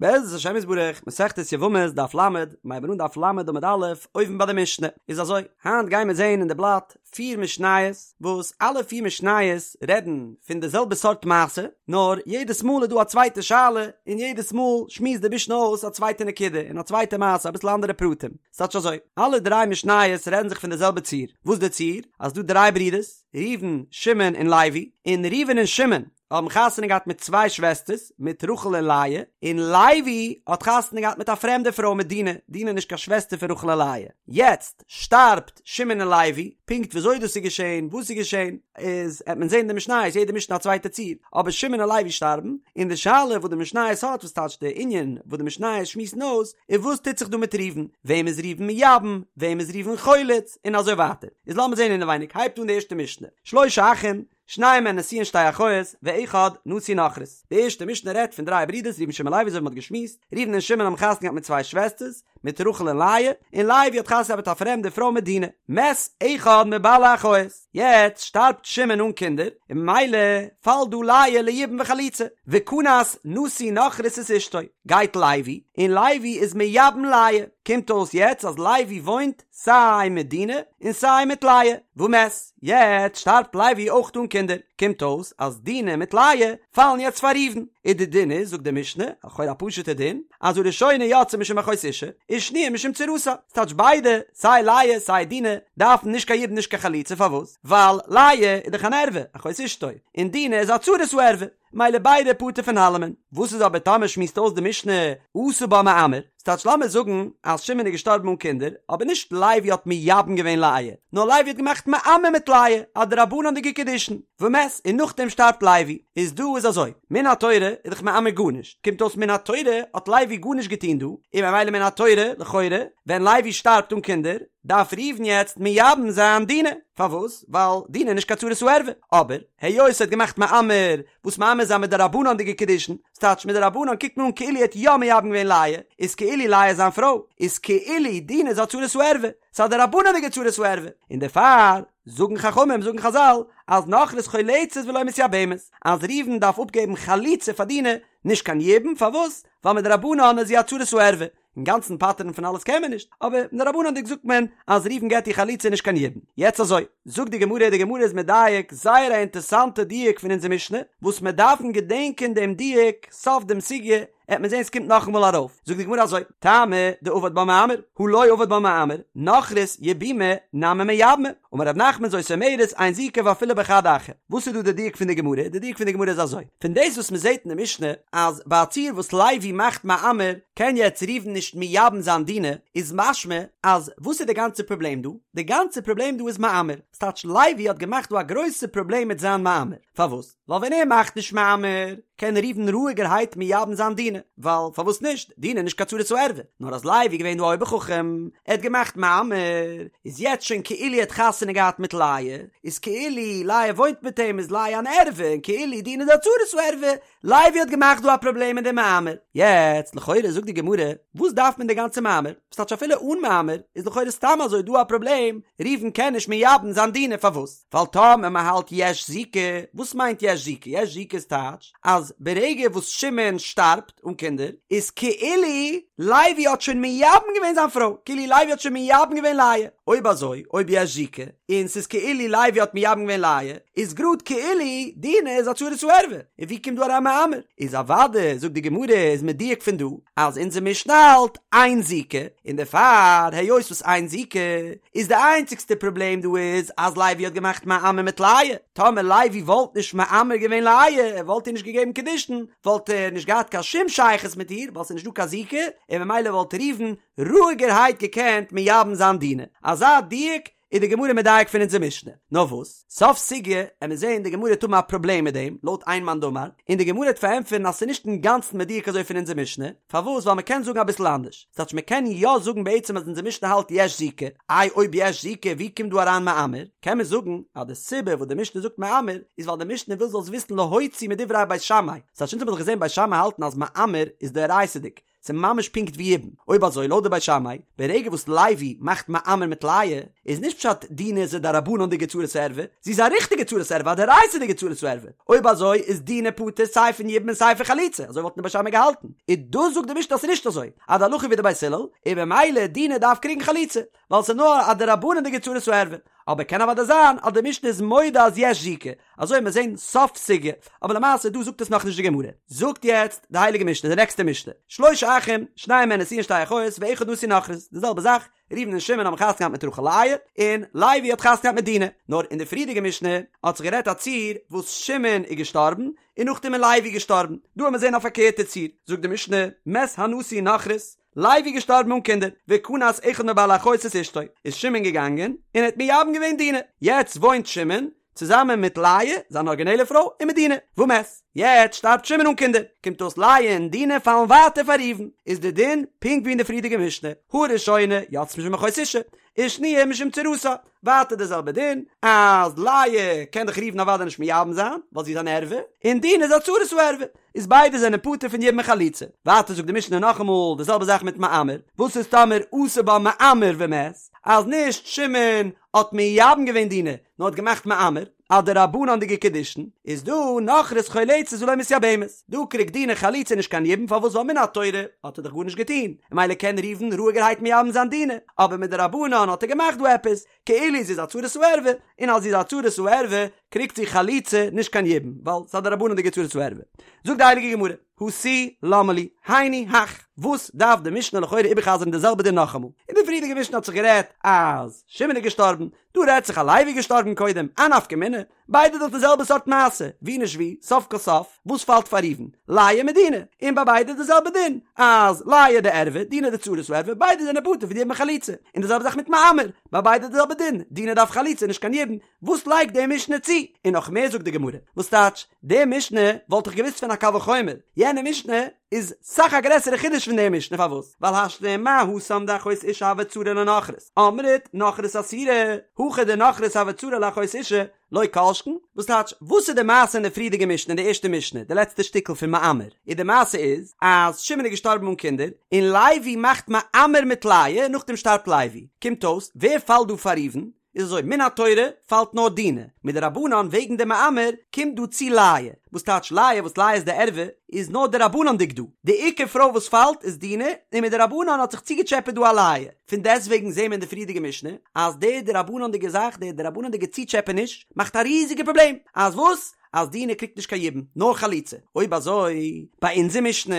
בעזרת השם יתברך, מסכת יבמות דף ל, מ'הייבן אן דף ל עמוד א', אויבן ביי די משנה, איז אזוי, היינט גייען מיר זעהן אין די בלאט פיר משניות, וואס אלע פיר משניות רעדן פון די זעלבע סארט מעשה, נאר יעדעס מאל איז דא א צווייטע שאלה, און יעדעס מאל שמועסט די משנה אויס א צווייטע נקודה, און א צווייטע מעשה, אביסל אנדערע פרטים. ס'טייטש אזוי, אלע דריי משניות רעדן זיך פון די זעלבע ציור, וואס די ציור? אז דא דריי ברידערס, ראובן, שמעון און לוי, און ראובן און שמעון האבן חתונה געהאט מיט צוויי שוועסטערס, מיט רחל און לאה, און לוי האט חתונה געהאט מיט א פרעמדע פרוי מיט דינה, דינה איז נישט קיין שוועסטער פון רחל און לאה. יעצט שטארבט שמעון און לוי, פונקט וויאזוי דאס איז געשען, וואס איז געשען, איז עט מען זען אין די משניות, יעדע משנה א צווייטע ציור, אבער שמעון און לוי שטארבן, און די שאלה וואס די משניות האט, וואס טייטש די ענין וואס די משניות שמועסן אויס, איז וואס טוט זיך דא מיט ראובן, וועם איז ראובן מייבם, וועם איז ראובן חולץ, און אזוי ווייטער. איז לאמיר זען אינעווייניג, הייבט אן די ערשטע משנה, שלשה אחים, שניים מהן נשואין שתי אחיות, ואחד נשוי נכרית. די ערשטע משנה רעדט פון דריי ברידערס ראובן שמעון לוי אזוי ווי מען האט געשמועסט, ראובן און שמעון האבן חתונה געהאט מיט צוויי שוועסטערס, מיט רחל און לאה, און לוי האט חתונה געהאט מיט א פרעמדע פרוי מיט דינה. מת אחד מבעלי אחיות. יעצט שטארבט שמעון אן קינדער, און ממילא פאלט דא לאה ליבום וחליצה. וכנס נשוי נכרית את אשתו. גייט לוי, און לוי איז מייבם לאה. קומט אויס יעצט אז לוי וואוינט סיי מיט דינה און סיי מיט לאה. ומת. יעצט שטארבט לוי אויך אן קינדער, קומט אויס אז דינה מיט לאה פאלן יעצט פאר ראובן, איז די דין איז, זאגט די משנה, לכאורה א פשוט'ע דין, אז הראשונה יוצאה משום אחות אשה, ושניה משום צרתה, ס'טייטש ביידע, סיי לאה סיי דינה, דארפן נישט קיין יבום נישט קיין חליצה, פארוואס? ווייל לאה איז דאך אן ערווה, אחות אשתו, און דינה איז א צרת הערווה. מילא ביידע פטור פון אלעמען. וואס איז אבער טאמער שמועסט אויס די משנה עשה בה מאמר, ס'טייטש לאמיר זאגן אז שמעון איז געשטארבן אן קינדער, אבער נישט לוי האט מייבם געווען לאה, נאר לוי האט געמאכט מאמר מיט לאה, א דרבנן'דיגע קידושין, ומת, און נאכדעם שטארבט לוי, איז דא איז אזוי, מן התורה איז דאך מאמר גארנישט, קומט אויס מן התורה האט לוי גארנישט געטון דא, און ממילא מן התורה, לכאורה, ווען לוי שטארבט אן קינדער, דארף ראובן יעצט מייבם זיין דינה, פארוואס? ווייל דינה איז נישט קיין צרת הערווה, אבער היות ער האט געמאכט מאמר, וואס מאמר איז א מדרבנן'דיגע קידושין, ס'טייטש מדרבנן קוקט מען אן כאילו ער האט יא מייבם געווען לאה, איז כאילו לאה איז זיין פרוי, איז כאילו דינה איז א צרת הערווה, ס'איז א דרבנן'דיגע צרת הערווה, און דערפאר זאגן חכמים זאגן חזל אז נכרית חולצת ולא מתייבמת, אז ראובן דארף אפגעבן חליצה פאר דינה, נישט קיין יבום, פארוואס? ווייל מדרבנן איז זי א צרת הערווה, אינגאנצן פטר'ן פון אלעס קען מען נישט, אבער מדרבנן'דיג זאגט מען אז ראובן געט איר חליצה נישט קיין יבום. יעצט אזוי, זאגט די גמרא, די גמרא איז מדייק זייער א אינטערסאנטע דיוק פון אונזער משנה, וואס מיר דארפן געדענקען דעם דיוק סוף דעם סוגיא, עט מען זען ס'קומט נאכאמאל ארויף, זאגט די גמרא אזוי, טעמא דעבד בה מאמר, הא לא עבד בה מאמר, נכרית יבומי נמי מייבמה, אמר רב נחמן זאת אומרת אין זיקה ואפילו בחד אחא. וואס איז דא די דיוק פון די גמרא? די דיוק פון די גמרא איז אזוי, פון דאס וואס מען זעט אין די משנה אז ביי א ציור וואס לוי מאכט מאמר קען יעצט ראובן נישט מייבם זיין דינה, איז משמע אז וואס איז די גאנצע פראבלעם דא? די גאנצע פראבלעם דא איז מאמר, ס'טייטש לוי האט געמאכט דא א גרויסע פראבלעם מיט זיין מאמר, פארוואס? ווייל ווען ער מאכט נישט מאמר קען ראובן רואיגערהייט מייבם זיין דינה, ווייל פארוואס נישט, דינה איז נישט קיין צרת הערווה, נאר אז לוי איז געווען דא א אויבער חכם, ער האט געמאכט מאמר, איז יעצט שוין כאילו ער האט חתונה געהאט מיט לאה, איז כאילו לאה וואוינט מיט אים איז לאה אן ערווה, און כאילו דינה איז א צרת הערווה, לוי האט געמאכט דא א פראבלעם מיט די מאמר. יעצט לכאורה זאגט די גמרא, וואס דארף מען די גאנצע מאמר? ס'טייטש אפילו אן מאמר איז לכאורה סתם אזוי דא א פראבלעם, ראובן קען נישט מייבם זיין דינה, פארוואס? ווייל טאמער מען האלט יש זיקה, וואס מיינט יש זיקה? יש זיקה איז טייטש אז ברגע וואס שמעון שטארבט אן קינדער, איז כאילו לוי האט שוין מייבם געווען זיין פרוי, כאילו לוי האט שוין מייבם געווען לאה. אויב אזוי, אויב יש זיקה, און ס'איז כאילו לוי האט מייבם געווען לאה, איז גראד כאילו דינה איז א צרת הערווה, און ווי קומט דא אריין מאמר? איז אוודאי, זאגט די גמרא, איז מדויק פון דא, אז אונזער משנה האלט אין זיקה, און דערפאר היות וואס אין זיקה, איז די איינציגסטע פראבלעם דא איז אז לוי האט געמאכט מאמר מיט לאה, טאמער לוי וואלט נישט מאמר געווען לאה, ער וואלט איר נישט געגעבן קידושין, וואלט ער נישט געהאט קיין שום שייכות מיט איר, ווייל ס'איז נישט דא קיין זיקה, און ממילא וואלט ראובן רואיגערהייט געקענט מייבם זיין דינה. אזא דיוק איז די גמרא מדייק פון אונזער משנה. נאר וואס, סוף סוגיא עמיר זעהן די גמרא וועט האבן א פראבלעם מיט דעם, לויט איין מאן דאמר, און די גמרא וועט פארענטפערן אז ס'איז נישט אינגאנצן מדויק אזוי פון אונזער משנה, פארוואס ווייל מ'קען זאגן אביסל אנדערש, ס'טייטש מ'קען יא זאגן בעצם אז אונזער משנה האלט יש זיקה, איי אויב יש זיקה ווי קומט דא אריין מאמר? קען מען זאגן אז די סיבה וואס די משנה זאגט מאמר איז ווייל די משנה וויל זאלסט וויסן להוציא מדברי בית שמאי, ס'טייטש אונז האבן דאך געזעהן בית שמאי האלטן אז מאמר איז דאורייתא'דיג, ס'איז ממש פונקט ווי יבום. אויב אזוי לויט די בית שמאי, ברגע וואס לוי מאכט מאמר מיט לאה, איז נישט פשט דינה איז א דרבנן'דיגע צרת ערווה, זי איז א ריכטיגע צרת ערווה, א דאורייתא'דיגע צרת ערווה. אויב אזוי איז דינה פטור סיי פון יבום און סיי פון חליצה, אזוי וואלטן די בית שמאי געהאלטן. און דאס זאגט די משנה אז ס'איז נישט אזוי, אז די הלכה ווי די בית הלל, און במילא דינה דארף קריגן חליצה, ווייל ס'איז נאר א דרבנן'דיגע צרת ערווה. אבער קען אוודאי זיין אז די משנה איז מודה אז יש זיקה, אזוי מיר זעהן סוף סוגיא, אבער למעשה דא זאגט עס נאכנישט די גמרא. זאגט יעצט די הייליגע משנה די נעקסטע משנה, שלשה אחים, שניים מהן נשואין שתי אחיות, ואחד נשוי נכרית, די זעלבע זאך, ראובן און שמעון האבן חתונה געהאט מיט רחל לאה, און לוי האט חתונה געהאט מיט דינה, נאר אין די פריערדיגע משנה האט זיך גערעדט א ציור וואס שמעון איז געשטארבן, און נאכדעם איז לוי געשטארבן, דא האמיר זעהן א פארקערטע ציור, זאגט די משנה, מת הנשוי נכרית, לוי געשטארבן אן קינדער, וכנס אחד מבעלי האחיות את אשתו, איז שמעון געגאנגען און ער האט מייבם געווען דינה, יעצט וואוינט שמעון צוזאמען מיט לאה, זיין ארגינעלע פרוי, און מיט דינה, ומת. יעצט שטארבט שמעון אן קינדער, קומט אויס לאה און דינה פאלן ווייטער פאר ראובן, איז די דין פונקט ווי אין די פריערדיגע משנה, הראשונה יוצאה משום אחות אשה, ושניה משום צרתה, ווייטער די זעלבע דין, אז לאה קען דאך ראובן אוודאי נישט מייבם זיין, ווייל זי איז אן ערווה, און דינה איז א צרת הערווה, איז ביידע זענען פטור פון יבום און חליצה. ווייטער זאגט די משנה נאכאמאל די זעלבע זאך מיט מאמר, וואס איז טאמער עשה בה מאמר ומת, אז נישט שמעון האט מייבם געווען דינה, נאר האט געמאכט מאמר, א דרבנן'דיגע קידושין, איז דא נכרית חולצת ולא מתייבמת, דא קריגט דינה חליצה נישט קיין יבום פארוואס ווייל מן התורה האט ער דאך גארנישט געטון, ממילא קען ראובן רואיגערהייט מייבם זיין דינה, אבער מדרבנן האט ער געמאכט דא עפעס, כאילו זי איז א צרת הערווה, און אז זי איז א צרת הערווה קריגט זי חליצה נישט קיין יבום, ווייל ס'איז א דרבנן'דיגע צרת הערווה. זאגט די הייליגע גמרא, הא תו למה לי, היינו הך, וואס דארף די משנה לכאורה איבערחזר'ן די זעלבע דין נאכאמאל? אין די פריערדיגע משנה האט זיך גערעדט אז שמעון איז געשטארבן, דא רעדט זיך אז לוי איז געשטארבן קודם, א נפקא מינה? ביידע דאך די זעלבע סארט מעשה, ווי נישט ווי, סוף כל סוף, וואס פאלט פאר ראובן? לאה מיט דינה, און ביי ביידע די זעלבע דין, אז לאה די ערווה, דינה די צרת הערווה, ביידע זענען פטור פון יבום און חליצה, און די זעלבע זאך מיט מאמר, ביי ביידע די זעלבע דין, דינה דארף חליצה נישט קיין יבום, וואס לייגט די משנה צו? און נאך מער זאגט די גמרא, וואס טייטש, די משנה וואלט איך געוואוסט פון א קל וחומר, יענע משנה איז סאך א גרעסערע חידוש פון די משנה, פארוואס? ווייל השתא מה התם דאחות אשה הוה צרה לנכרית, אמרת נכרית אסירא, הכא דנכרית הוה צרה לאחות אשה, לא כל שכן, וואס טייטש, וואס איז די מעשה אין די פריערדיגע משנה, אין די ערשטע משנה, די לעצטע שטיקל פון מאמר, און די מעשה איז, אז שמעון איז געשטארבן אן קינדער, און לוי מאכט מאמר מיט לאה, נאכדעם שטארבט לוי, קומט אויס, ווער פאלט דא פאר ראובן? איז אזוי, מן התורה פאלט נאר דינה, מדרבנן וועגן די מאמר קומט דא צו לאה, וואס טייטש לאה וואס לאה איז די ערווה, איז נאר דרבנן'דיג דא, די עיקר פרוי וואס פאלט איז דינה, און מדרבנן האט זיך צוגעטשעפעט דא א לאה, פון דעסטוועגן זעהן מיר אין די פריערדיגע משנה אז די דרבנן'דיגע זאך, די דרבנן'דיגע צוטשעפעניש, מאכט א ריזיגע פראבלעם, אז וואס? אז דינה קריגט נישט קיין יבום, נאר חליצה, אויב אזוי ביי אונזער משנה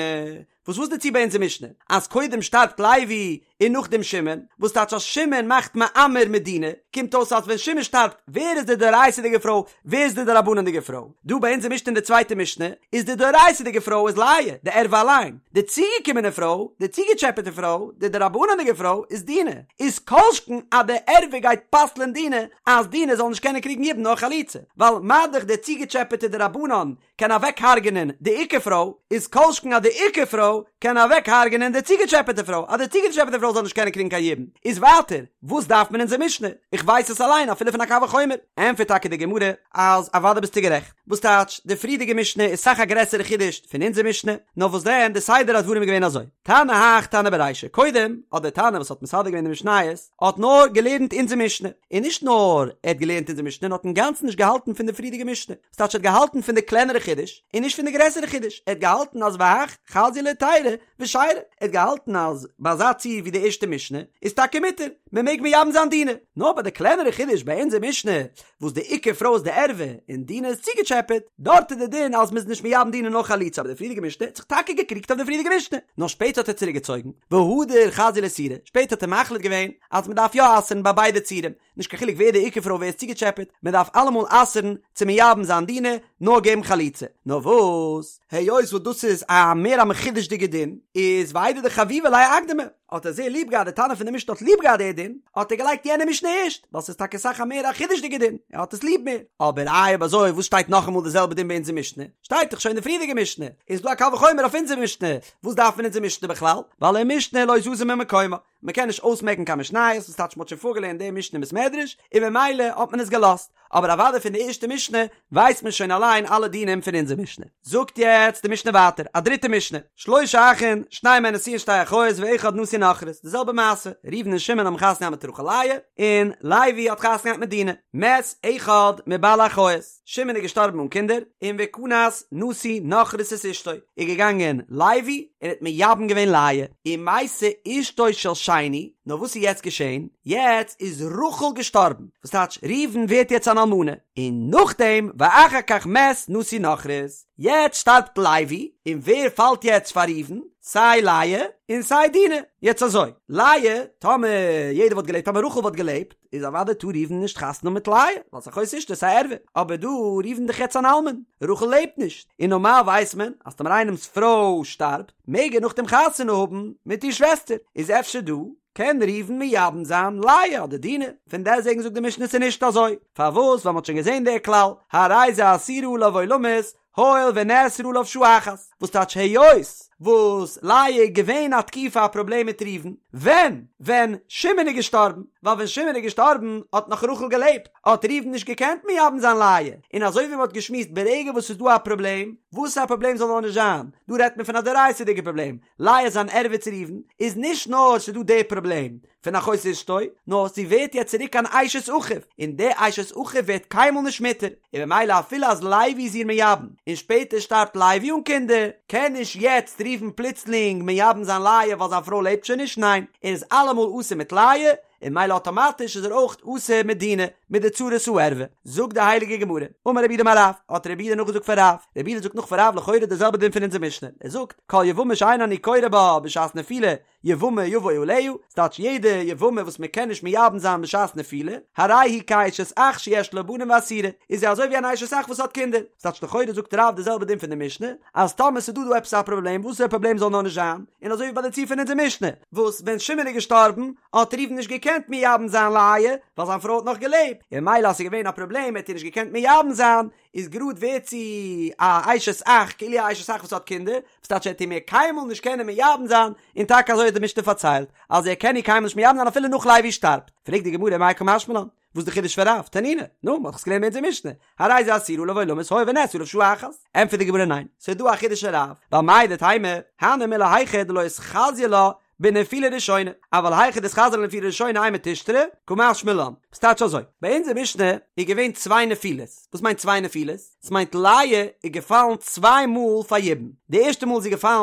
וואס וואס די ציור ביי אונזער משנה? אז קודם שטארבט לוי און נאכדעם שמעון, וואס טייטש אז שמעון מאכט מאמר מיט דינה, קומט אויס אז ווען שמעון שטארבט ווער איז די דאורייתא'דיגע פרוי, ווער איז די דרבנן'דיגע פרוי? דא ביי אונזער משנה אין די צווייטע משנה איז די דאורייתא'דיגע פרוי איז לאה, די ערווה אליין, די צוגעקומענע פרוי, די צוגעטשעפעטע פרוי, די דרבנן'דיגע פרוי איז דינה, איז כל שכן אז די ערווה גייט פסל'ען דינה אז דינה זאל נישט קענען קריגן יבום נאר חליצה, ווייל מה דאך די צוגעטשעפעטע דרבנן קען אוועק הרג'נען די עיקר פרוי, איז כל שכן אז די עיקר פרוי קען אוועק הרג'נען די צוגעטשעפעטע פרוי, אז די צוגעטשעפעטע פרוי זאל נישט קענען קריגן קיין יבום. איז ווייטער, וואס דארף מען אונזער משנה? איך ווייס עס אליין אפילו פון א קל וחומר. ענטפערט טאקע די גמרא אז אוודאי ביסטו גערעכט. וואס טייטש, די פריערדיגע משנה איז סאך א גרעסערע חידוש פון אונזער משנה, נאר וואס דען, די סדר הדברים איז געווען אזוי, תנא הך תנא ברישא, קודם האט דער תנא וואס האט מסדר געווען די משניות, האט נאר געלערנט אונזער משנה, און נישט נאר ער האט געלערנט אונזער משנה, נאר האט אינגאנצן נישט געהאלטן פון די פריערדיגע משנה. ס'טייטש ער האט געהאלטן פון די קלענערע חידוש און נישט פון די גרעסערע חידוש, ער האט געהאלטן אז והך חזיא להיתירא ושיירא, ער האט געהאלטן אז ביי אזא ציור ווי די ערשטע משנה איז טאקע מותר, מען מעג מייבם זיין דינה, נאר ביי די קלענערע חידוש ביי אונזער משנה וואס די עיקר פרוי איז די ערווה און דינה איז צוגעטשעפעט, דארט איז די דין אז מ'איז נישט מייבם דינה נאר חליצה אבער די פריערדיגע משנה האט זיך טאקע געקריגט אויף די פריערדיגע משנה, נאר שפעטער האט ער צוריקגעצויגן, והדר חזיא לאיסורא, שפעטער האט ער מחליט געווען אז מ'דארף יא אסר'ן ביי ביידע ציורים, נישט קיין חילוק ווער די עיקר פרוי ווער איז צוגעטשעפעט, מען דארף אלעמאל אסר'ן צו מייבם זיין דינה, נאר געבן חליצה. נאר וואס, היות וואס דאס איז א מער א מחודש'דיגע דין, איז ואיידי דחביבא ליה אקדמה, האט ער זייער ליב געהאט די תנא פון די משנה האט ליב געהאט די דין, האט ער געלייגט יענע משנה ערשט, ווייל ס'איז טאקע אסאך א מער א חידוש'דיגע דין, ער האט עס ליב מער. אבער איי אויב אזוי וואס שטייט נאכאמאל די זעלבע דין ביי אונזער משנה? שטייט דאך שוין אין די פריערדיגע משנה, איז דא א קל וחומר אויף אונזער משנה, וואס דארף מען אונזער משנה בכלל? ווייל ומשנה לא זזה ממקומה. מען קען נישט אויסמעקן קיין משניות, וואס טייטש מען האט שוין פארגעלערנט די משנה אין בית מדרש, און ממילא האט מען עס געלאזט, אבער אוודאי פון די ערשטע משנה ווייסט מען שוין אליין אלע דינים פון אונזער משנה. זאגט יעצט די משנה ווייטער, א דריטע משנה, שלשה אחין, שתיים מהן נשואין שתי אחיות ואחד נשוי נכרית, די זעלבע מעשה, ראובן און שמעון האבן חתונה געהאט מיט רחל לאה, און לוי האט חתונה געהאט מיט דינה, מת אחד מבעלי אחיות, שמעון איז געשטארבן אן קינדער, און וכנס נשוי נכרית את אשתו, איז געגאנגען לוי און האט מייבם געווען לאה, ומתה אשתו של שני, נאר וואס איז יעצט געשען? יעצט איז רחל געשטארבן, וואס טייטש ראובן ווערט יעצט אן אלמנה, און נאכדעם ואחר כך מת נשוי נכרית, יעצט שטארבט לוי, און ווער פאלט יעצט פאר ראובן? סיי לאה און סיי דינה, יעצט אזוי, לאה, טאמער יעדער וואלט געלעבט, טאמער רחל וואלט געלעבט, איז אוודאי טאר ראובן נישט חתונה האבן מיט לאה, ווייל ס'איז אחות אשתו, ס'איז א ערווה, אבער דא ראובן דאך יעצט אן אלמן, רחל לעבט נישט, און נארמאל ווייסט מען אז טאמער איינעמ'ס פרוי שטארבט, מעג ער נאכדעם חתונה האבן מיט איר שוועסטער, איז אפשר דא קען ראובן מייבם זיין לאה אדער דינה, פון דעסטוועגן זאגט די משנה ס'איז נישט אזוי, פארוואס ווייל מ'האט שוין געזען דער כלל, הרי זו אסורה עליו עולמית, הואיל ונאסרה עליו שעה אחת, וואס טייטש היות וואס לאה איז געווען א תקופה א פראבלעם מיט ראובן, ווען? ווען שמעון איז געשטארבן, ווייל ווען שמעון איז געשטארבן האט נאך רחל געלעבט, האט ראובן נישט געקענט מייבם זיין לאה, און אזוי ווי מ'האט געשמועסט ברגע וואס ס'איז דא א פראבלעם, וואס א פראבלעם זאל נאר נישט זיין, דא רעדט מען פון א דאורייתא'דיגע פראבלעם, לאה איז אן ערווה צו ראובן, איז נישט נאר ס'איז דא די פראבלעם פון אחות אשתו, נאר זי ווערט יעצט צוריק אן אשת אחיו, און די אשת אחיו ווערט קיינמאל נישט מותר, און ממילא אפילו אז לוי איז איר מייבם, און שפעטער שטארבט לוי אן קינדער, קען נישט יעצט ראובן פלוצלינג מייבם זיין לאה ווייל זיין פרוי לעבט שוין נישט, ניין, ער איז אלעמאל אסור מיט לאה, און ממילא אטאמאטיש איז ער אויך אסור מיט דינה, מיט די צרת הערווה. זאגט די הייליגע גמרא, אמר רב יהודה אמר רב, האט רב יהודה נאכגעזאגט פון רב, רב יהודה זאגט נאך פון רב לכאורה די זעלבע דין פון אונזער משנה, ער זאגט, כל יבמה שאין אני קורא בה בשעת נפילה, יבמה יבוא עליה, ס'טייטש יעדע יבמה וואס מען קען נישט מייבם זיין בשעת נפילה, הרי היא כאשת אח שיש לה בנים ואסורה, איז זי אזוי ווי אן אשת אח וואס האט קינדער, ס'טייטש לכאורה זאגט רב די זעלבע דין פון די משנה, אז טאמער ס'איז דא דא עפעס א פראבלעם וואסערע פראבלעם זאל נאר נישט זיין, און אזוי ווי ביי די ציור פון אונזער משנה, וואס ווען שמעון איז געשטארבן האט ראובן נישט געקענט מייבם זיין לאה, ווייל זיין פרוי האט נאך געלעבט, און ממילא אז ס'איז געווען א פראבלעם האט ער נישט געקענט מייבם זיין, איז גראד ווערט זי א אשת אח, כאילו א אשת אח וואס האט קינדער, וואס טייטש ער וועט איר מער קיינמאל נישט קענען מייבם זיין, און טאקע אזוי האט די משנה פארציילט, אז ער קען איר קיינמאל נישט מייבם זיין אפילו נאך לוי שטארבט. פרעגט די גמרא מאי קא משמע לן, וואס איז די חידוש פון רב? תנינא, נו, מ'האט דאך עס געלערנט אין אונזער משנה, הרי זו אסורה עליו עולמית הואיל ונאסרה עליו שעה אחת. ענטפערט די גמרא ניין, ס'איז דא א חידוש אין רב, ווייל מהו דתימא, הני מילי היכא דלא איתחזי לה בנפילה ראשונה, אבל היכא דאיתחזי לה בנפילה ראשונה אימא תישתרי, קא משמע לן. ס'טייטש אזוי, ביי אונזער משנה איז געווען צוויי נפילות, וואס מיינט צוויי נפילות? ס'מיינט לאה איז געפאלן צוויי מאל פאר יבום, די ערשטע מאל איז זי געפאלן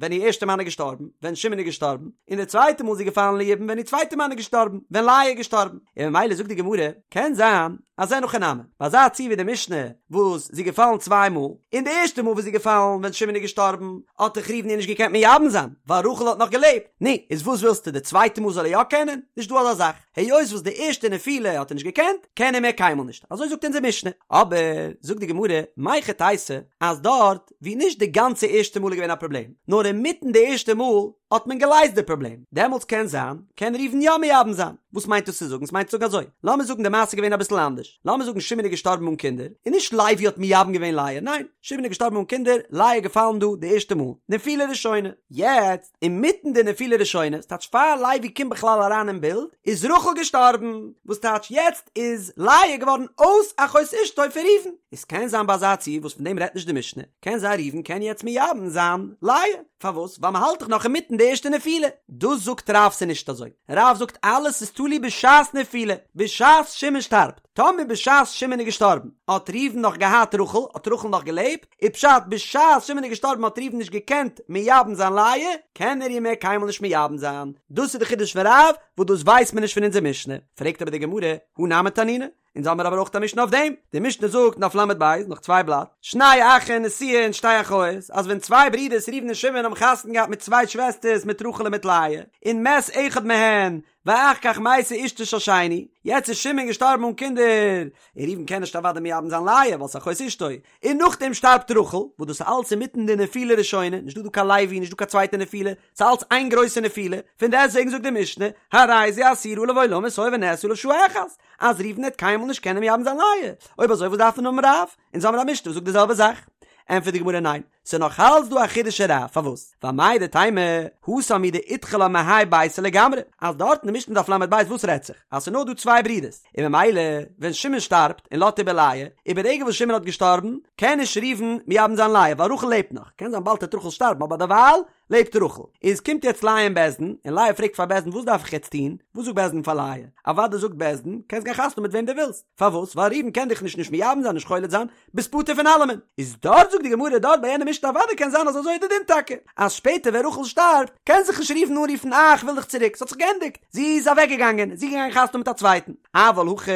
ווען איר ערשטע מאן איז געשטארבן, ווען שמעון איז געשטארבן, און די צווייטע מאל איז זי געפאלן ליבום ווען איר צווייטע מאן איז געשטארבן, ווען לאה איז געשטארבן, און ממילא זאגט די גמרא, קען זיין אז אין הכי נמי, ביי אזא ציור ווי די משנה וואס זי איז געפאלן צוויי מאל, און די ערשטע מאל וואס זי איז געפאלן ווען שמעון איז געשטארבן, האט דאך ראובן איר נישט געקענט מייבם זיין, ווייל רחל האט נאך געלעבט, נו, איז וואס ווילסטו די צווייטע מאל זאל ער יא קענען? נישט דא אזא זאך, היות וואס די ערשטע נפילה האט ער נישט געקענט, קען ער מער קיינמאל נישט, אזוי זאגט אונזער משנה, אבער, זאגט די גמרא, מהיכי תיתי, אז דארט ווי נישט די גאנצע ערשטע מאל איז געווען א פראבלעם, נאר אינמיטן די ערשטע מאל האט מען געלייזט די פראבלעם, דעמאלטס קען זיין קען ראובן יא מייבם זיין. וואס מיינט דאס צו זאגן? ס'מיינט צו זאגן אזוי, לאמיר זאגן די מעשה איז געווען אביסל אנדערש, לאמיר זאגן שמעון איז געשטארבן אן קינדער, און נישט לוי האט מייבם געווען לאה, ניין, שמעון איז געשטארבן אן קינדער, לאה איז געפאלן דא די ערשטע מאל, נפילה ראשונה, יעצט אינמיטן די נפילה ראשונה, ס'טייטש פאר לוי קומט בכלל אריין אין בילד, איז רחל געשטארבן, וואס טייטש יעצט איז לאה געווארן אויס אחות אשתו פון ראובן, איז קען זיין ביי אזא ציור וואס פון דעם רעדט נישט די משנה, קען זיין ראובן קען יעצט מייבם זיין לאה, פארוואס? ווייל מ'האלט דאך נאך אינמיטן די ערשטע נפילה. דאס זאגט רב ס'נישט אזוי, רב זאגט אלעס איז תלוי בשעת נפילה, בשעת שמעון שטארבט, טאמער בשעת שמעון איז געשטארבן האט ראובן נאך געהאט רחל, האט רחל נאך געלעבט, איז פשט בשעת שמעון איז געשטארבן האט ראובן נישט געקענט מייבם זיין לאה, קען ער איר מער קיינמאל נישט מייבם זיין, דאס איז די חידוש פון רב, וואס דאס ווייסט מען נישט פון אונזער משנה, פרעגט אבער די גמרא, הא נמי תנינא, אונז האמיר אבער אויך א משנה אויף דעם, די משנה זאגט דף ל"ב, נאך צוויי בלאט, שני אחין נשואין שתי אחיות, אז ווען צוויי ברידערס ראובן און שמעון האבן חתונה געהאט מיט צוויי שוועסטערס מיט רחל און מיט לאה, און מת אחד מהן, ואחר כך מתה אשתו של שני, יעצט איז שמעון געשטארבן אן קינדער, און ראובן קען נישט אוודאי מייבם זיין לאה ווייל ס'איז אחות אשתו, און נאכדעם שטארבט רחל, וואס דאס איז אלץ אינמיטן די נפילה ראשונה, נישט דא דא קיין לוי, נישט דא קיין צווייטע נפילה, ס'איז אלץ איין גרויסע נפילה, פון דעסטוועגן זאגט די משנה, הרי זו אסורה עליו עולמית הואיל ונאסרה עליו שעה אחת, אז ראובן וועט קיינמאל נישט קענען מייבם זיין לאה, אויב אזוי וואס דארף מען האבן רב? אונז האמיר א משנה וואס זאגט די זעלבע זאך. ענטפערט די גמרא ניין, ס'איז נאך אלץ דא א חידוש אין רב, פארוואס? ווייל מהו דתימא, התם הוא דאידחי לה מהאי ביתא לגמרי, אז דארט אין די משנה דף ל"ב וואס רעדט זיך? אז ס'איז נאר דא צוויי ברידערס, און ממילא ווען שמעון שטארבט און לאזט איבער לאה, איז ברגע וואס שמעון האט געשטארבן, קען נישט ראובן מייבם זיין לאה, ווייל רחל לעבט נאך, קען זיין באלד וועט רחל שטארבן אבער דערווייל לעבט רחל. איז קומט יעצט לאה אין בית דין, און לאה פרעגט פאר בית דין וואס דארף איך יעצט טון? וואס זאגט בית דין פאר לאה? אוודאי זאגט בית דין, קענסט גיין חתונה מיט וועם דו ווילסט. פארוואס? ווייל ראובן קען דיך נישט נישט מייבם זיין נישט חולץ זיין, ביסט פטור פון אלעמען. איז דארט זאגט די גמרא דארט ביי יענע משנה אוודאי קען זיין אז אזוי איז די דין טאקע, אז שפעטער ווען רחל שטארבט קען זיך נישט ראובן אנרופן אה איך וויל דיך צוריק ס'האט זיך געענדיגט זי איז אוועק געגאנגען זי איז געגאנגען חתונה מיט א צווייטן. אבל הכא,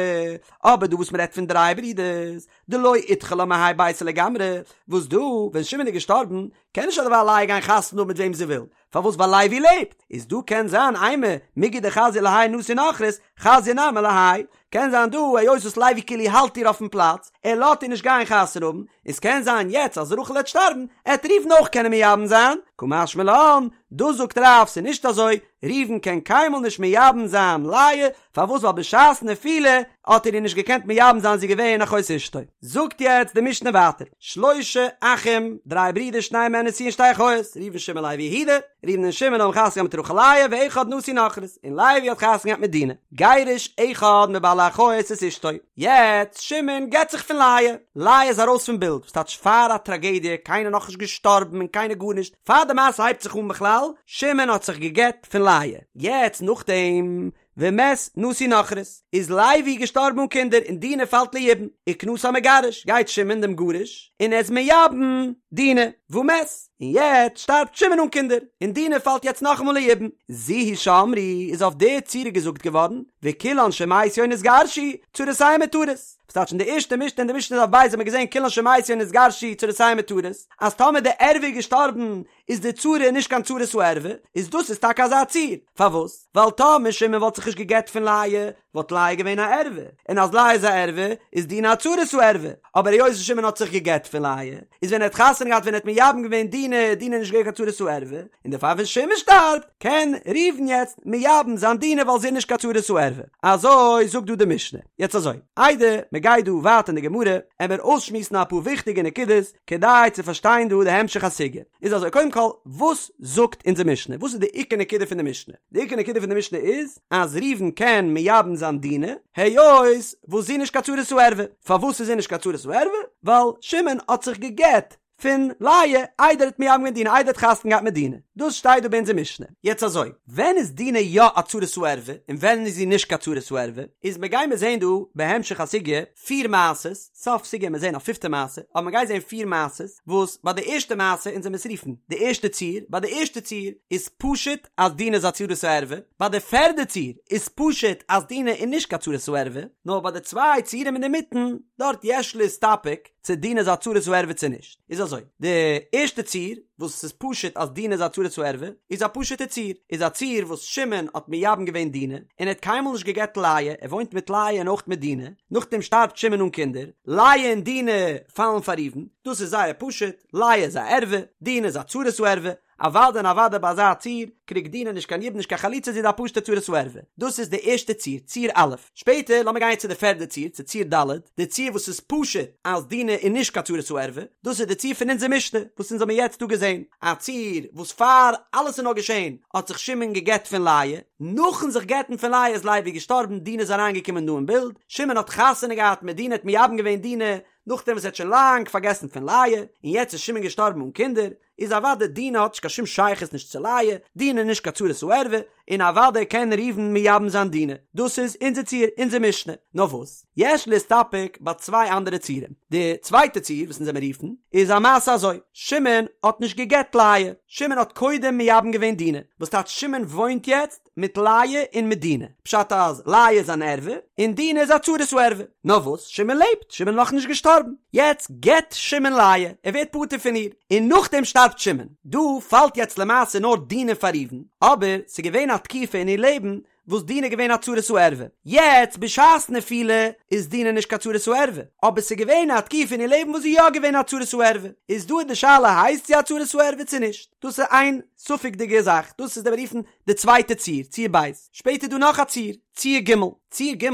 אבער דא וואס מ'רעדט פון דריי ברידערס, דלא אידחי לה מהאי ביתא לגמרי, וואס דא ווען שמעון איז געשטארבן קען נישט אדערווייל לאה גיין חתונה האבן מיט וועם זי וויל, פארוואס ווייל לוי לעבט, איז דא קען זיין אימא מיגו דחזיא להאי נשוי נכרית, חזיא נמי להאי, קען זיין דא היות וואס לוי כאילו האלט איר אויפן פלאץ, ער לאט איר נישט גיין חתונה האבן, איז קען זיין יעצט אז רחל העט שטארבן, עט ראובן אויך קענען מייבם זיין, קא משמע לן, דאס זאגט רב ס'איז נישט אזוי, ראובן קען קיינמאל נישט מייבם זיין לאה, פארוואס ווייל בשעת נפילה האט ער איר נישט געקענט מייבם זיין זי איז געווען אחות אשתו. זאגט יעצט די משנה ווייטער, שלשה אחים, דריי ברידער שתיים מהן נשואין שתי אחיות, ראובן שמעון לוי יהודה, ראובן און שמעון האבן חתונה געהאט מיט רחל לאה ואחד נשוי נכרית, און לוי האט חתונה געהאט מיט דינה, גירש אחד מבעלי אחיות את אשתו, יעצט שמעון גט זיך פון לאה, לאה איז ארויס פון בילד, וואס טייטש פאר א טראגעדיע, קיינער נאכנישט געשטארבן און קיינער גארנישט, פאר די מעשה הייבט זיך אן בכלל, שמעון האט זיך געגט פון לאה, יעצט נאכדעם ומת נשוי נכרית, איז לוי געשטארבן אן קינדער און דינה פאלט ליבום, וכנסה המגרש, גייט שמעון דעם גרוש און ער איז מייבם דינה, ומת, און יעצט שטארבט שמעון אן קינדער, און דינה פאלט יעצט נאכאמאל ליבום, זו היא שאמרו, איז אויף די צורה געזאגט געווארן, וכולן שמתו או נתגרשו, צרותיהן מותרות. וואס טייטש אין די ערשטע משנה אין די משנה דף ב' האט מען געזען כולן שמתו או נתגרשו צרותיהן מותרות, אז טאמער די ערווה איז געשטארבן איז די צרה נישט קיין צרת הערווה, איז דאס איז טאקע אזא ציור, פארוואס? ווייל טאמער שמעון וואלט זיך נישט געגט פון לאה, וואלט לאה געווען א ערווה, און אז לאה איז א ערווה, איז דינה א צרת הערווה, אבער היות שמעון האט זיך געגט פון לאה, איז ווען ער האט חתונה געהאט ווען ער האט מייבם געווען דינה, איז דינה נישט געווען קיין צרת הערווה, און דערפאר ווען שמעון שטארבט, קען ראובן יעצט מייבם זיין דינה ווייל זי איז נישט קיין צרת הערווה. אזוי זאגט דא די משנה. יעצט אזוי, איידער מען גייט דא ווייטער אין די גמרא, עמער אויסשמועסן אפאר וויכטיגע נקודות, כדי צו פארשטיין דא די המשך הסוגיא, איז אזוי, קודם כל, וואס זאגט אונזער משנה? וואס איז די עיקר נקודה פון די משנה? די עיקר נקודה פון די משנה איז, אז ראובן קען מייבם זיין דינה, היות וואס זי איז נישט קיין צרת הערווה. פארוואס איז זי נישט קיין צרת הערווה? ווייל שמעון האט זיך גע'גט פון לאה איידער ער האט מייבם געווען דינה, איידער ער האט חתונה געהאט מיט דינה. דאס שטייט דא ביי אונזער משנה. יעצט אזוי, ווען איז דינה יא א צרת הערווה, און ווען איז זי נישט קיין צרת הערווה? איז מ'גיימיר זעהן דא בהמשך הסוגיא פיר מעשות, סוף סוגיא עמיר זעהן א פיפטע מעשה, אבער מ'גייט זעהן פיר מעשות, וואס ביי די ערשטע מעשה, אונז עמיר עס רופן די ערשטע ציור, ביי די ערשטע ציור איז פשוט אז דינה איז א צרת הערווה, ביי די פערדע ציור איז פשוט אז דינה איז נישט קיין צרת הערווה, נאר ביי די צוויי ציורים אינדערמיטן, דארט יש להסתפק צו דינה איז א צרת הערווה צו נישט. איז אזוי, די ערשטע ציור, וואס ס'איז פשוט אז דינה איז א צרת הערווה, איז א פשוטע ציור, איז א ציור וואס שמעון האט מייבם געווען דינה, און ער האט קיינמאל נישט גע'גט לאה, ער וואוינט מיט לאה און אויך מיט דינה, נאכדעם שטארבט שמעון אן קינדער, לאה און דינה פאלן פאר ראובן, דאס איז זייער פשוט, לאה איז א ערווה, דינה איז א צרת הערווה, אוודאי און אוודאי ביי אזא ציור, קריגט דינה נישט קיין יבום נישט קיין חליצה זי איז א פשוטע צרת הערווה. דאס איז די ערשטע ציור, ציור א'. שפעטער לאמיר גיין צו די פערדע ציור, צו ציור ד', די ציור וואס איז פשוט אז דינה איז נישט קיין צרת הערווה, דאס איז די ציור פון אונזער משנה וואס אונז האבן יעצט דא געזען, א ציור וואס פאר אלעס איז נאר געשען האט זיך שמעון געגט פון לאה, נאכן זיך גט'ן פון לאה איז לוי געשטארבן, דינה איז אריינגעקומען דא אין בילד, שמעון האט חתונה געהאט מיט דינה האט מייבם געווען דינה, נאכדעם וואס ער האט שוין לאנג פארגעסן פון לאה, און יעצט איז שמעון געשטארבן אן קינדער, איז אוודאי דינה האט נישט קיין שום שייכות נישט צו לאה, דינה איז נישט קיין צרת הערווה, און אוודאי קען ראובן מייבם זיין דינה. דאס איז אונזער ציור, אונזער משנה. נאר וואס? יש להסתפק ביי צוויי אנדערע ציורים. די צווייטע ציור וואס אונז עמיר רופן, איז א מעשה אזוי, שמעון האט נישט גע'גט לאה, שמעון האט קודם מייבם געווען דינה, וואס טייטש שמעון וואוינט יעצט מיט לאה און מיט דינה, פשט אז לאה איז אן ערווה און דינה איז א צרת הערווה, נאר וואס שמעון לעבט, שמעון איז נאכנישט געשטארבן, יעצט גט שמעון לאה, ער ווערט פטור פון איר, און נאכדעם שטארבט שמעון, דא פאלט יעצט למעשה נאר דינה פאר ראובן, אבער ס'איז געווען א תקופה אין איר לעבן וואס דינה איז געווען א צרת הערווה, יעצט בשעת נפילה איז דינה נישט קיין צרת הערווה, אבער ס'איז געווען א תקופה אין איר לעבן וואס זי איז יא געווען א צרת הערווה, איז דא איז די שאלה הייסט זי א צרת הערווה צו נישט, דאס איז איין ספק'דיגע זאך, דאס איז די מיר רופן די צווייטע ציור, ציור ב'. שפעטער איז דא נאך א ציור, ציור ג', ציור ג'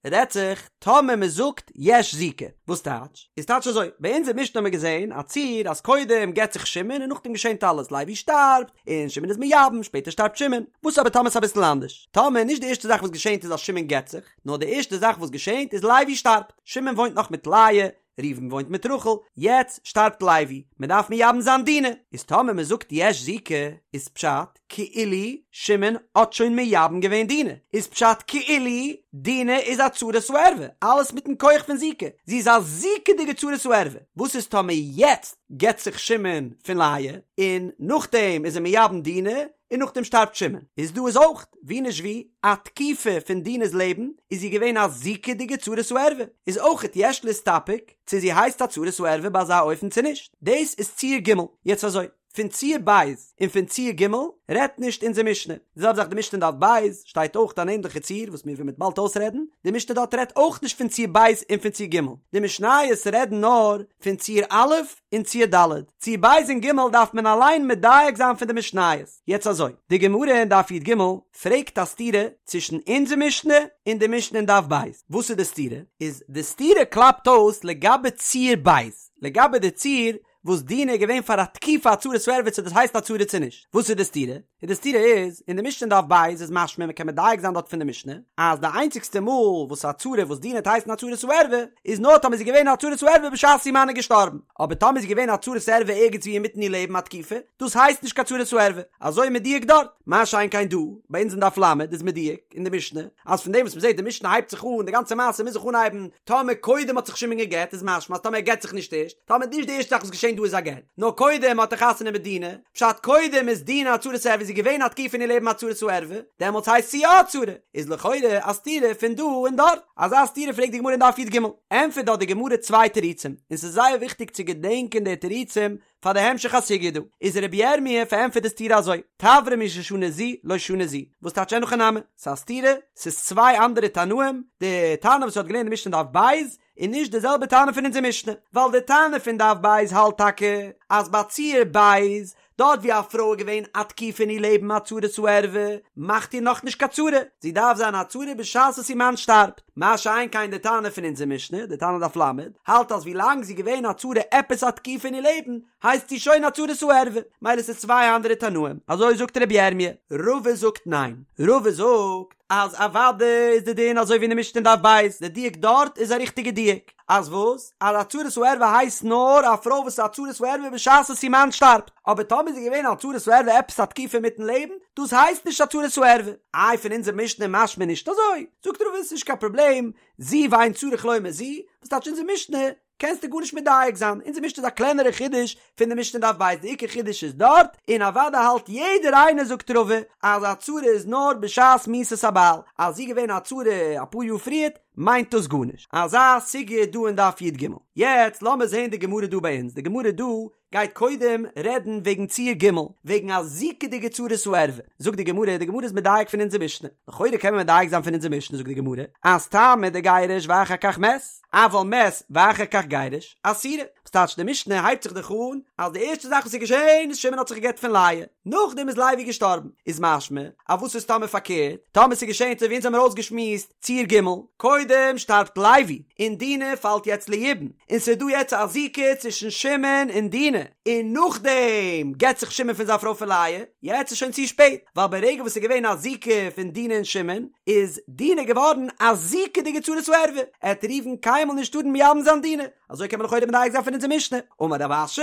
רעדט זיך טאמער מען זאגט יש זיקה, וואס טייטש? איז טייטש אזוי, ביי אונזער משנה האבן מיר געזען א ציור אז קודם גט זיך שמעון און נאכדעם געשענט אלעס, לוי שטארבט און שמעון איז מייבם, שפעטער שטארבט שמעון, וואס אבער טאמער ס'איז אביסל אנדערש? טאמער נישט די ערשטע זאך וואס געשענט איז אז שמעון גט זיך, נאר די ערשטע זאך וואס געשענט איז לוי שטארבט, שמעון וואוינט נאך מיט לאה, ראובן וואוינט מיט רחל, יעצט שטארבט לוי, מען דארף מייבם זיין דינה, איז טאמער מען זאגט יש זיקה, איז פשט כאילו שמעון האט שוין מייבם געווען דינה, איז פשט כאילו דינה איז א צרת הערווה, אלעס מיטן כח פון זיקה, זי איז א זיקה'דיגע צרת הערווה, וואס איז טאמער יעצט גט זיך שמעון פון לאה, און נאכדעם איז ער מייבם דינה, און נאכדעם שטארבט שמעון, איז דא איז אויך, ווי נישט ווי, א תקופה פון דינה'ס לעבן איז זי געווען א זיקה'דיגע צרת הערווה, איז אויכעט יש להסתפק צו זי הייסט א צרת הערווה ביי אזא אופן צו נישט, דאס איז ציור ג', יעצט אזוי, פון ציור ב' און פון ציור ג' רעדט נישט אונזער משנה, די זעלבע זאך די משנה אין דף ב' שטייט אויך אן ענדליכע ציור וואס מיר וועלן באלד אויסרעדן, די משנה דארט רעדט אויך נישט פון ציור ב' און פון ציור ג', די משניות רעדן נאר פון ציור א' און ציור ד', ציור ב' און ג' דארף מען אליין מדייק זיין פון די משניות. יעצט אזוי, די גמרא אין דף י"ג פרעגט א סתירה צווישן אונזער משנה און די משנה אין דף ב', וואס איז די סתירה? איז די סתירה קלאפט אויס לגבי ציור ב', לגבי די ציור וואס דינה איז געווען פאר א תקופה א צרת הערווה צו דאס הייסט א צרה צו נישט, וואס איז די סתירה? און די סתירה איז, אין די משנה אין דף ב' איז משמע, מ'קען מדייק זיין דארט פון די משנה, אז די איינציגסטע מאל וואס א צרה וואס דינה וועט הייסן א צרת הערווה, איז נאר טאמער זי איז געווען א צרת הערווה בשעת איר מאן איז געשטארבן, אבער טאמער איז זי געווען א צרת הערווה ערגעץ ווי אינמיטן איר לעבן א תקופה, דאס הייסט נישט קיין צרת הערווה, אזוי מדויק דארט. מה שאין כן דא, ביי אונז אין דף ל' איז מדויק אין די משנה, אז פון דעם וואס מ'זעט די משנה הייבט זיך אן, די גאנצע מעשה מוז זיך אנהייבן, טאמער קודם האט זיך שמעון גע'גט איז משמע אז טאמער ער גט זיך נישט ערשט, טאמער נישט די ערשטע זאך וואס געשען דא איז א גט, נאר קודם האט ער חתונה מיט דינה, פשט קודם איז דינה א צרת הערווה איז זי געווען א תקופה אין איר לעבן א צרת הערווה, דעמאלטס הייסט זי יא א צרה, איז לכאורה א סתירה פון דא און דארט, אזא סתירה פרעגט די גמרא אין דף י"ג, ענטפערט דארט די גמרא צוויי תירוצים, און ס'איז זייער וויכטיג צו געדענקען די תירוצים פאר די המשך הסוגיא דא, איז רבי ירמי' פארענטפערט די סתירה אזוי, תברא מי ששנה זו לא שנה זו, וואס טייטש אין הכי נמי, ס'איז א סתירה, ס'איז צוויי אנדערע תנאים, די תנא וואס האט געלערנט די משנה דף ב', איז נישט די זעלבע תנא פון אונזער משנה, ווייל די תנא פון דף ב' האלט טאקע אז ביי ציור ב', דארט ווי א פרוי איז געווען א תקופה אין איר לעבן א צרת הערווה, מאכט איר נאכנישט קיין צרה, זי דארף זיין א צרה בשעת וואס איר מאן שטארבט, מה שאין כן די תנא פון אונזער משנה, די תנא דף ל', האלט אז ווי לאנג זי איז געווען א צרה עפעס א תקופה אין איר לעבן, הייסט זי שוין א צרת הערווה, מילא ס'איז צוויי אנדערע תנאים, אזוי זאגט רבי ירמי'. רבא זאגט ניין, רבא זאגט אז אוודאי איז די דין אזוי ווי אין די משנה אין דף ב', די דיוק דארט איז א ריכטיגע דיוק, אז וואס? אז א צרת הערווה הייסט נאר א פרוי וואס איז א צרת הערווה בשעת וואס איר מאן שטארבט, אבער טאמער איז זי געווען א צרת הערווה עפעס א תקופה אינמיטן לעבן, דאס הייסט נישט א צרת הערווה. איי פון אונזער משנה משמע נישט אזוי? זאגט רבא עס איז נישט קיין פראבלעם, זו ואין צריך לומר זו, וואס טייטש אונזער משנה קענסטו גארנישט מדייק זיין, אונזער משנה איז א קלענערע חידוש פון די משנה דף ב', די עיקר חידוש איז דארט, און אוודאי האלט יעדער איינער זאגט רבא אז א צרה איז נאר בשעת מיתת הבעל, אז זי איז געווען א צרה אפאר יאר פריערט מיינט דאס גארנישט. אזא סוגיא איז דא אין דף י"ג. יעצט לאמיר זעהן די גמרא דא ביי אונז, די גמרא דא גייט קודם רעדן וועגן ציור ג', וועגן א זיקה'דיגע צרת הערווה, זאגט די גמרא, די גמרא איז מדייק פון אונזער משנה, לכאורה קען מען מדייק זיין פון אונזער משנה, זאגט די גמרא, אז טעמא דגירש ואחר כך מת, אבל מת ואחר כך גירש, אסירה. וואס טייטש די משנה הייבט זיך דאך אן אז די ערשטע זאך וואס איז געשען איז שמעון האט זיך געגט פון לאה, נאכדעם איז לוי געשטארבן, איז משמע אז וואס איז טאמער פארקערט, טאמער ס'איז געשען אזוי ווי אונז האמיר אויסגעשמועסט, ציור ג', קודם שטארבט לוי, און דינה פאלט יעצט ליבום, און ס'איז דא יעצט א זיקה צווישן שמעון און דינה, און נאכדעם גט זיך שמעון פון זיין פרוי פון לאה, יעצט איז שוין צו שפעט, ווייל ברגע וואס ס'איז געווען א זיקה פון דינה און שמעון, איז דינה געווארן א זיקה'דיגע צרת הערווה, עט ראובן קיינמאל נישט טארן מייבם זיין דינה, אזוי קען מען לכאורה מדייק זיין פון אונזער משנה, אמר רב אשי,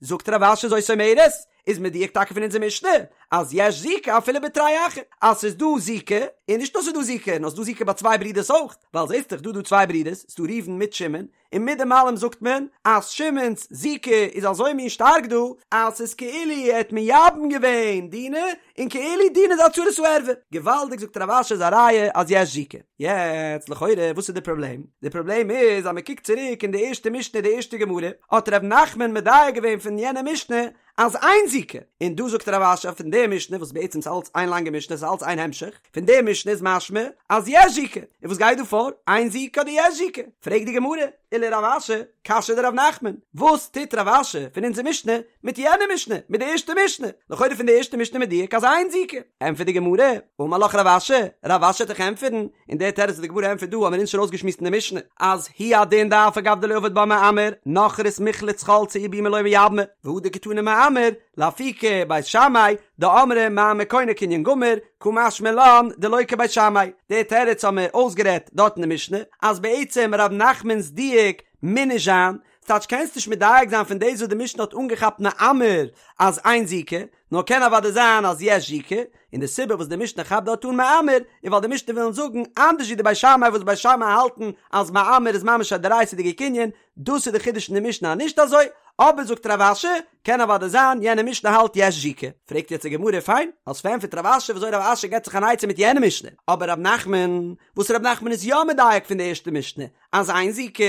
זאגט רב אשי זאת אומרת, איז מדויק טאקע פון אונזער משנה אז יש זיקה אפילו בתרי אחי אז ס'איז דא זיקה, און נישט נאר ס'איז דא זיקה, נאר ס'איז דא זיקה ביי צוויי ברידערס אויך, ווייל זעסט דאך דא דא צוויי ברידערס, ס'איז דא ראובן מיט שמעון, און מיט דעם אלעם זאגט מען אז שמעון'ס זיקה איז אזוי מין שטארק דא, אז ס'איז כאילו ער האט מייבם געווען דינה, און כאילו דינה איז א צרת הערווה. געוואלדיג זאגט רב אשי איז א ראיה אז יש זיקה. יעצט לכאורה וואס איז די פראבלעם? די פראבלעם איז אז מ'קוקט צוריק אין די ערשטע משנה די ערשטע גמרא האט ר' נחמן מדייק געווען פון יענע משנה אז אין זיקה, און דא זאגט רב אשי פון די משנה וואס בעצם איז אלץ איין לאנגע משנה ס'איז אלץ איין המשך, פון די משנה איז משמע אז יש זיקה, און וואס גייט דא פאר? אין זיקה אדער יש זיקה? פרעגט די גמרא. ולרב אשי קשיא דרב נחמן, וואס טוט רב אשי פון אונזער משנה מיט יענע משנה, מיט די ערשטע משנה? לכאורה פון די ערשטע משנה מדויק אז אין זיקה. ענטפערט די גמרא, אמר לך רב אשי, רב אשי וועט דיך ענטפערן, און דער תירוץ וואס די גמרא ענטפערט דא האבן מיר אונז שוין אויסגעשמועסט אין די משנה, אז הוא הדין דאף על גב דלא עביד בה מאמר, נכרית מיחלץ חלצה ויבומי לא מייבמה, והא דקתני מאמר, לאפוקי בית שמאי, דאמרי מאמר קונה קנין גמור, קא משמע לן דלא כבית שמאי. די תירוץ האבן מיר אויסגערעדט דארט אין די משנה, אז בעצם ר' נחמנ'ס דיוק מוז נישט זיין, ס'טייטש קענסט נישט מדייק זיין פון דאס וואס די משנה האט אנגעכאפט מאמר אז אין זיקה, נאר קען אוודאי זיין אז יש זיקה, און די סיבה וואס די משנה כאפט דארט אן מאמר, איז ווייל די משנה ווילן זאגן אנדערש ווי די בית שמאי וואס בית שמאי האלטן אז מאמר איז ממש א דאורייתא'דיגע קנין, דאס איז די חידוש אין די משנה אז נישט אזוי, אבער זאגט רב אשי, קען אוודאי זיין יענע משנה האלט יש זיקה. פרעגט יעצט די גמרא, פיין, האסט פארענטפערט רב אשי וויאזוי רב אשי געבט זיך אן עצה מיט יענע משנה, אבער רב נחמן, וואס רב נחמן איז יא מדייק פון די ערשטע משנה אז אין זיקה,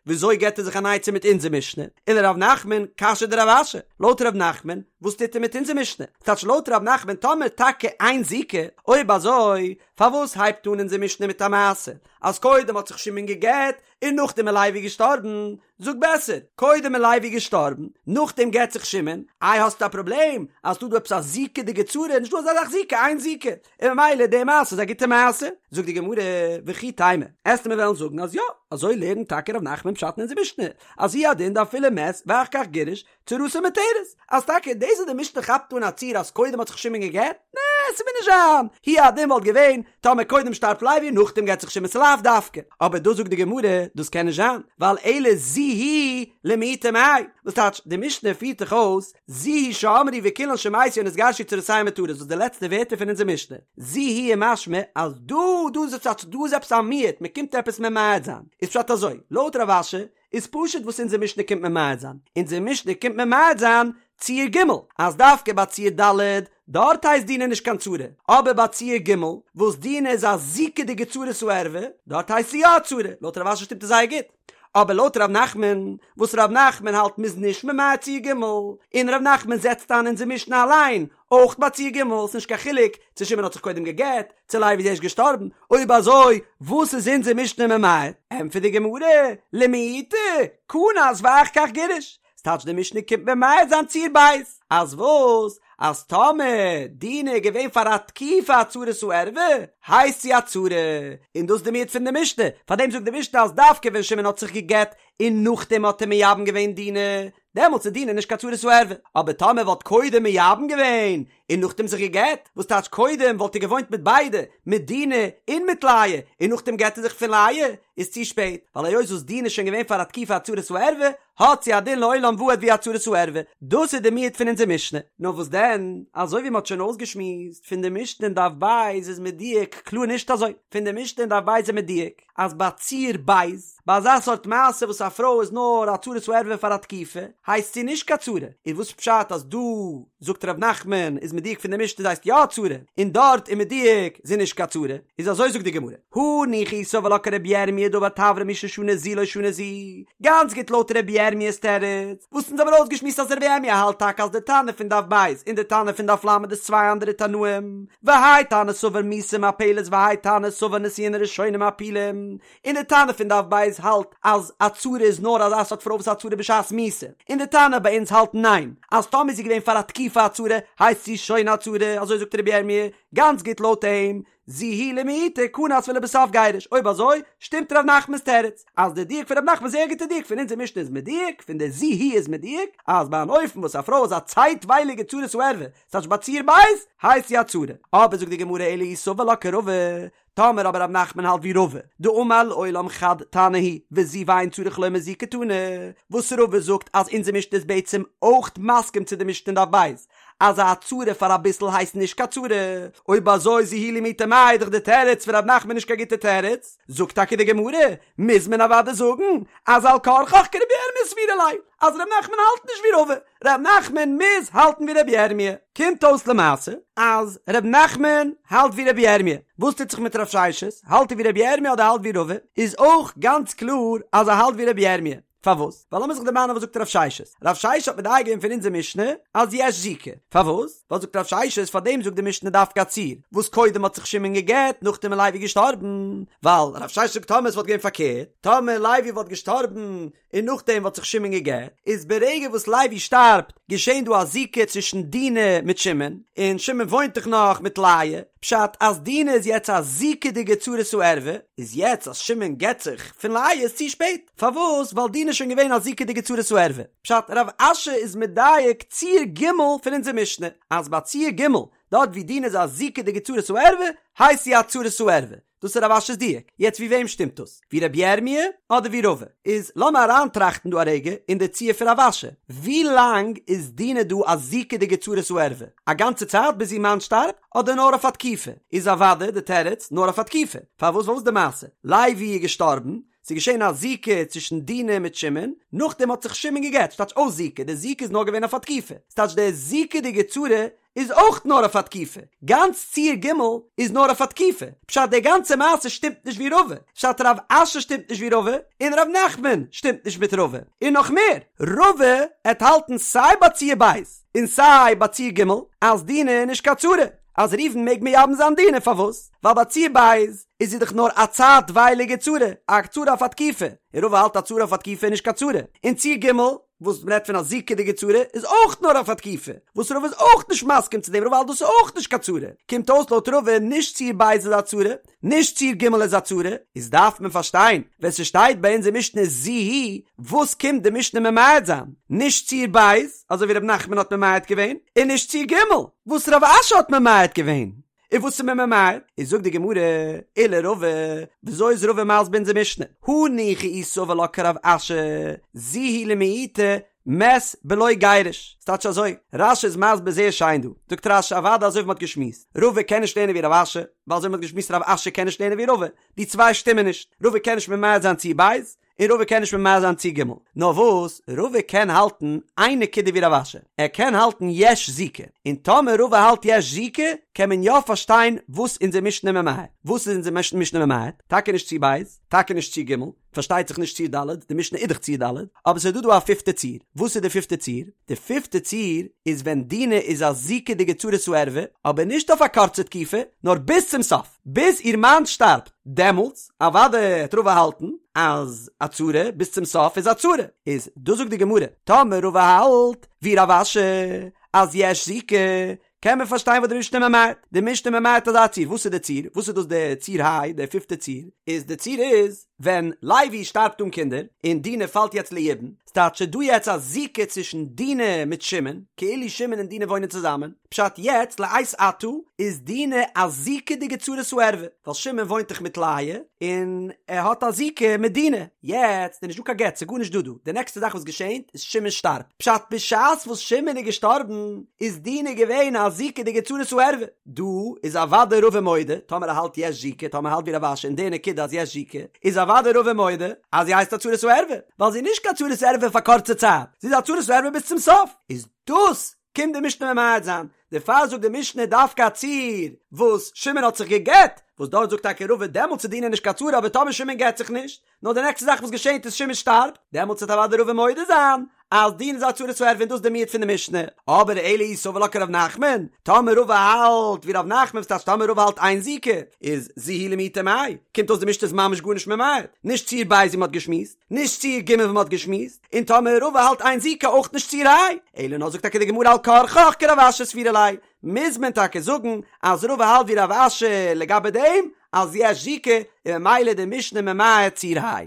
וויאזוי געבט ער זיך אן עצה מיט אונזער משנה? ולרב נחמן קשיא דרב אשי, לויט רב נחמן, וואס טוט ער מיט אונזער משנה? ס'טייטש לויט רב נחמן טאמער טאקע אין זיקה, אויב אזוי פארוואס הייבט אן אונזער משנה מיט א מעשה אז קודם האט זיך שמעון גע'גט און נאכדעם איז לוי געשטארבן? זאג בעסער, קודם איז לוי געשטארבן, נאכדעם גט זיך שמעון, איי האסטו א פראבלעם אז ס'דא דא עפעס א זיקה'דיגע צרה, נישטא אזא זאך זיקה, אין זיקה, און ממילא די מעשה איז א גוטע מעשה. זאגט די גמרא, וכי תימא, עסטו מיר וועלן זאגן אז יא, אזוי לערנט טאקע ר' נחמן פשט אין אונזער משנה, אז הוא הדין דאפילו מת ואחר כך גירש, צרתו מותרת, אז טאקע דאס וואס די משנה כאפט אן א ציור אז קודם האט זיך שמעון גע'גט, נע, ס'מוז נישט זיין, הוא הדין וואלט געווען, טאמער קודם שטארבט לוי נאכדעם גט זיך שמעון ס'לאו דווקא, אבער דא זאגט די גמרא, דאס קען נישט זיין, ווייל אלא זו היא למעוטי מאי, וואס טייטש, די משנה פירט דאך אויס, זו היא שאמרו וכולן שמתו או נתגרשו צרותיהן מותרות, וואס די לעצטע ווערטער פון אונזער משנה, זו היא איז משמע אז דא דא איז טייטש דא איז עפעס א מיעוט, מ'קומט עפעס ממעט זיין, איז פשט אזוי, לויט רב אשי, איז פשוט וואס אונזער משנה קומט ממעט זיין, אונזער משנה קומט ממעט זיין ציור ג', אז דווקא ביי ציור ד', דארט הייסט דינה נישט קיין צרה, אבער ביי ציור ג', וואס דינה איז א זיקה'דיגע צרת הערווה, דארט הייסט זי יא א צרה, לויט רב אשי שטימט עס זייער גוט, אבער לויט ר' נחמן, וואס ר' נחמן האלט מ'איז נישט ממעט ציור ג', און ר' נחמן זעצט איין אונזער משנה אליין, אויך ביי ציור ג', ס'נישט קיין חילוק צו שמעון האט זיך קודם גע'גט, צו לוי איז ערשט געשטארבן, אויב אזוי וואס איז אונזער משנה ממעט? ענטפערט די גמרא, למעוטי, כנס ואחר כך גירש, ס'טייטש די משנה קומט ממעט זיין ציור ב', אז וואס? אז טאמער דינה איז געווען פאר א תקופה א צרת הערווה, הייסט זי א צרה, און דאס איז די מיעוט פון די משנה, פארדעם זאגט די משנה אז דווקא ווען שמעון האט זיך גע'גט און נאכדעם האט ער מייבם געווען דינה, דעמאלטס איז דינה נישט קיין צרת הערווה, אבער טאמער וואלט קודם מייבם געווען און נאכדעם זיך גע'גט, וואס טייטש קודם וואלט ער געוואוינט מיט ביידע, מיט דינה און מיט לאה, און נאכדעם גט ער זיך פון לאה, איז צו שפעט, ווייל היות וואס דינה איז שוין געווען פאר א תקופה א צרת הערווה, האט זי א דין לעולם ועד ווי א צרת הערווה, דאס איז די מיעוט פון אונזער משנה. נאר וואס דען, אזוי ווי מען האט שוין אויסגעשמועסט, פון די משנה אין דף ב' איז מדויק קלאר נישט אזוי, פון די משנה אין דף ב' איז מדויק, אז ביי ציור ב', ביי אזא סארט מעשה וואס א פרוי איז נאר א צרת הערווה פאר א תקופה, הייסט זי נישט קיין צרה, איז וואס פשט אז דא זאגט ר' נחמן איז מדויק פון די משנה זי הייסט יא א צרה, און דארט איז מדויק זי נישט קיין צרה, איז אזוי זאגט די גמרא, הניחא אי סבר לה כרבי ירמי' דאמר תברא מי ששנה זו לא שנה זו, גאנץ גוט לויט רבי ירמיה'ס תירוץ, וואס אונז האבן אויסגעשמועסט אז רבי ירמי' האלט טאקע אז די תנא פון דף ב' און די תנא פון דף ל' איז צוויי אנדערע תנאים, והאי תנא סבר מיתה מפלת והאי תנא סבר נישואין הראשונים מפילים, און די תנא פון דף ב' האלט אז א צרה איז נאר אזא סארט פרוי וואס איז א צרה בשעת מיתה, און די תנא ביי אונז האלט ניין, אז טאמער איז זי געווען פאר א תקופה א צרה הייסט זי שוין א צרה, אזוי זאגט רבי ירמי', גאנץ גוט לויט אים, זו היא למעוטי כנס ולבסוף גירש, אויב אזוי שטימט ר' נחמנ'ס תירוץ, אז די דיוק פון ר' נחמן איז זייער גוטע דיוק פון אונזער משנה איז מדויק, פון די זו היא איז מדויק, אז ביי אן אופן וואס א פרוי איז א צייטווייליגע צרת הערווה, ס'טייטש ביי ציור ב', הייסט זי א צרה. אבער זאגט די גמרא אלא אי סבר לה כרבא, טאמער אבער ר' נחמן האלט ווי רבא, דאמר לעולם חד תנא הוא, וזו ואין צריך לומר זו קתני, וואס רבא זאגט אז אונזער משנה איז בעצם אויך מסכים צו די משנה אין דף ב', אז א צרה פאר אביסל הייסט נישט קיין צרה, אויב אזוי זו היא למעוטי מאי איז דאך די תירוץ פון ר' נחמן נישט קיין גוטע תירוץ, זאגט טאקע די גמרא, מוז מען אוודאי זאגן אז על כרחך כרבי ירמי' סבירא ליה, אז ר' נחמן האלט נישט ווי רבא, ר' נחמן מוז האלטן ווי רבי ירמי'. קומט אויס למעשה אז ר' נחמן האלט ווי רבי ירמי', וואס טוט זיך מיט רב ששת, האלט ער ווי רבי ירמי' אדער האלט ווי רבא? איז אויך גאנץ קלאר אז ער האלט ווי רבי ירמי'. פארוואס? ווייל לאמיר זיך דערמאנען וואס זאגט רב ששת. רב ששת האט מדייק געווען פון אונזער משנה אז יש זיקה. פארוואס? ווייל זאגט רב ששת פאר דעם זאגט די משנה דווקא א ציור וואס קודם האט זיך שמעון גע'גט נאכדעם איז לוי געשטארבן. ווייל רב ששת זאגט טאמער עס וואלט געווען פארקערט, טאמער לוי וואלט געשטארבן און נאכדעם וואלט זיך שמעון גע'גט, איז ברגע וואס לוי שטארבט געשען דא א זיקה צווישן דינה מיט שמעון, און שמעון וואוינט דאך נאך מיט לאה, פשט אז דינה איז יעצט א זיקה'דיגע צרת הערווה, איז יעצט אז שמעון גט זיך פון לאה איז צו שפעט, פארוואס? ווייל דינה איז שוין געווען א זיקה'דיגע צרת הערווה. פשט, רב אשי איז מדייק ציור ג' פון אונזער משנה, אז ביי ציור ג', דארט ווי דינה איז א זיקה'דיגע צרת הערווה, הייסט זי א צרת הערווה. דאס איז רב אשי'ס דיוק. יעצט ווי וועם שטימט דאס? ווי רבי ירמי' אדער ווי רבא? איז לאמיר אריינטראכטן דא א רגע אין די ציור פון רב אשי. ווי לאנג איז דינה דא א זיקה'דיגע צרת הערווה? א גאנצע צייט ביז איר מאן שטארבט? אדער נאר אויף א תקופה? איז אוודאי די תירוץ נאר אויף א תקופה. פארוואס? ווייל וואס איז די מעשה? לוי איז געשטארבן, ס'איז געשען א זיקה צווישן דינה מיט שמעון, נאכדעם האט זיך שמעון גע'גט, ס'טייטש אויס זיקה, די זיקה איז נאר געווען אויף א תקופה. ס'טייטש די זיקה'דיגע צרה איז אויך נאר אויף א תקופה, גאנץ ציור ג' איז נאר אויף א תקופה, פשט די גאנצע מעשה שטימט נישט ווי רבא, פשט רב אשי שטימט נישט ווי רבא, און רב נחמן שטימט נישט מיט רבא, און נאך מער, רבא עט האלטן סיי ביי ציור ב' און סיי ביי ציור ג' אז דינה איז נישט קיין צרה, אז ראובן מעג מייבם זיין דינה פארוואס? ווייל ביי ציור ב' איז זי דאך נאר א צייטווייליגע צרה, א צרה אויף א תקופה, און רבא האלט א צרה אויף א תקופה איז נישט קיין צרה, און ציור ג' וואס מ'רעדט פון א זיקה'דיגע צרה איז אויך נאר אויף א תקופה, וואס רבא איז אויך נישט מסכים צו דעם, רבא האלט דאס איז אויך נישט קיין צרה, קומט אויס לויט רבא נישט ציור ב' איז א צרה, נישט ציור ג' איז א צרה, איז דארף מען פארשטיין ווען ס'שטייט ביי אונזער משנה זו היא, וואס קומט די משנה ממעט זיין? נישט ציור ב', אזוי ווי ר' נחמן האט ממעט געווען, און נישט ציור ג', וואס רב אשי האט ממעט געווען. און וואס איז מען ממעט? איז זאגט די גמרא, ולרבא, וויאזוי איז רבא מסביר אונזער משנה? הניחא אי סבר לה כרב אשי, זו היא למעוטי מת בלא גירוש. ס'טייטש אזוי, רש"י איז מסביר זייער שיין דא, זאגט רש"י אוודאי אזוי ווי מ'האט געשמועסט, רבא קען נישט לערנען ווי רב אשי, ווייל אזוי ווי מ'האט געשמועסט רב אשי קען נישט לערנען ווי רבא, די צוויי שטימען נישט, רבא קען נישט ממעט זיין ציור ב', און רבא קען נישט ממעט זיין ציור ג'. נאר וואס, רבא קען האלטן איין נקודה ווי רב אשי, ער קען האלטן יש זיקה, און טאמער רבא האלט יש זיקה, קען מען יא פארשטיין וואס אונזער משנה ממעט. וואס איז אונזער משנה ממעט? טאקע נישט ציור ב', טאקע נישט ציור ג', פארשטייט זיך נישט ציור ד', די משנה איז דאך ציור ד', אבער ס'איז דא דא א פיפטע ציור. וואס איז די פיפטע ציור? די פיפטע ציור איז ווען דינה איז א זיקה'דיגע צרת הערווה, אבער נישט אויף א קורצע תקופה, נאר ביז צום סוף. ביז איר מאן שטארבט, דעמאלטס אוודאי העט רבא האלטן אז א צרה ביז צום סוף איז א צרה, איז דאס זאגט די גמרא, טאמער רבא האלט ווי רב אשי אז יש זיקה, קען מען פארשטיין וואס די משנה ממעט, די משנה ממעט אזא ציור, וואס איז די ציור? וואס איז דאס די ציור ה', די פיפטע ציור? איז די ציור איז ווען לוי שטארבט אן קינדער, און דינה פאלט יעצט ליבום, ס'טייטש ס'איז דא יעצט א זיקה צווישן דינה מיט שמעון, כאילו שמעון און דינה וואוינען צוזאמען, פשט יעצט לעת עתה איז דינה א זיקה'דיגע צרת הערווה, ווייל שמעון וואוינט דאך מיט לאה, און ער האט א זיקה מיט דינה, יעצט איז נישט דא קיין גט, ס'איז גארנישט דא דא, די נעקסטע זאך וואס געשענט איז שמעון שטארבט, פשט בשעת וואס שמעון איז געשטארבן איז דינה געווען א זיקה'דיגע צרת הערווה, דא איז אוודאי רבא מודה, טאמער ער האלט יש זיקה, טאמער ער האלט ווי רב אשי אין די נקודה אז יש זיקה, איז אוודאי רבא מודה אז זי הייסט א צרת הערווה, ווייל זי איז נישט קיין צרת ערווה פאר קורצע צייט, זי איז א צרת הערווה ביז צום סוף, איז דאס קומט די משנה ממעט זיין, דערפאר זאגט די משנה דווקא א ציור וואס שמעון האט זיך גע'גט, וואס דארט זאגט טאקע רבא דעמאלטס איז דינה נישט קיין צרה אבער טאמער שמעון גט זיך נישט, נאר די נעקסטע זאך וואס געשענט איז שמעון שטארבט, דעמאלטס וועט אוודאי רבא מודה זיין אז דינה איז א צרת הערווה און דאס איז די מיעוט פון די משנה, אבער אלא אי סבר לה כרב נחמן, טאמער רבא האלט ווי רב נחמן וואס טייטש טאמער רבא האלט אין זיקה, איז זו היא למעוטי מאי, קומט אויס די משנה איז ממש גארנישט ממעט, נישט ציור ב' ווי מ'האט געשמועסט, נישט ציור ג' ווי מ'האט געשמועסט, און טאמער רבא האלט אין זיקה אויך נישט ציור ה', אלא נאר זאגט טאקע די גמרא על כרחך כרב אשי סבירא ליה, מוז מען טאקע זאגן אז רבא האלט ווי רב אשי לגבי דעם אז יש זיקה און ממילא די משנה ממעט ציור ה'.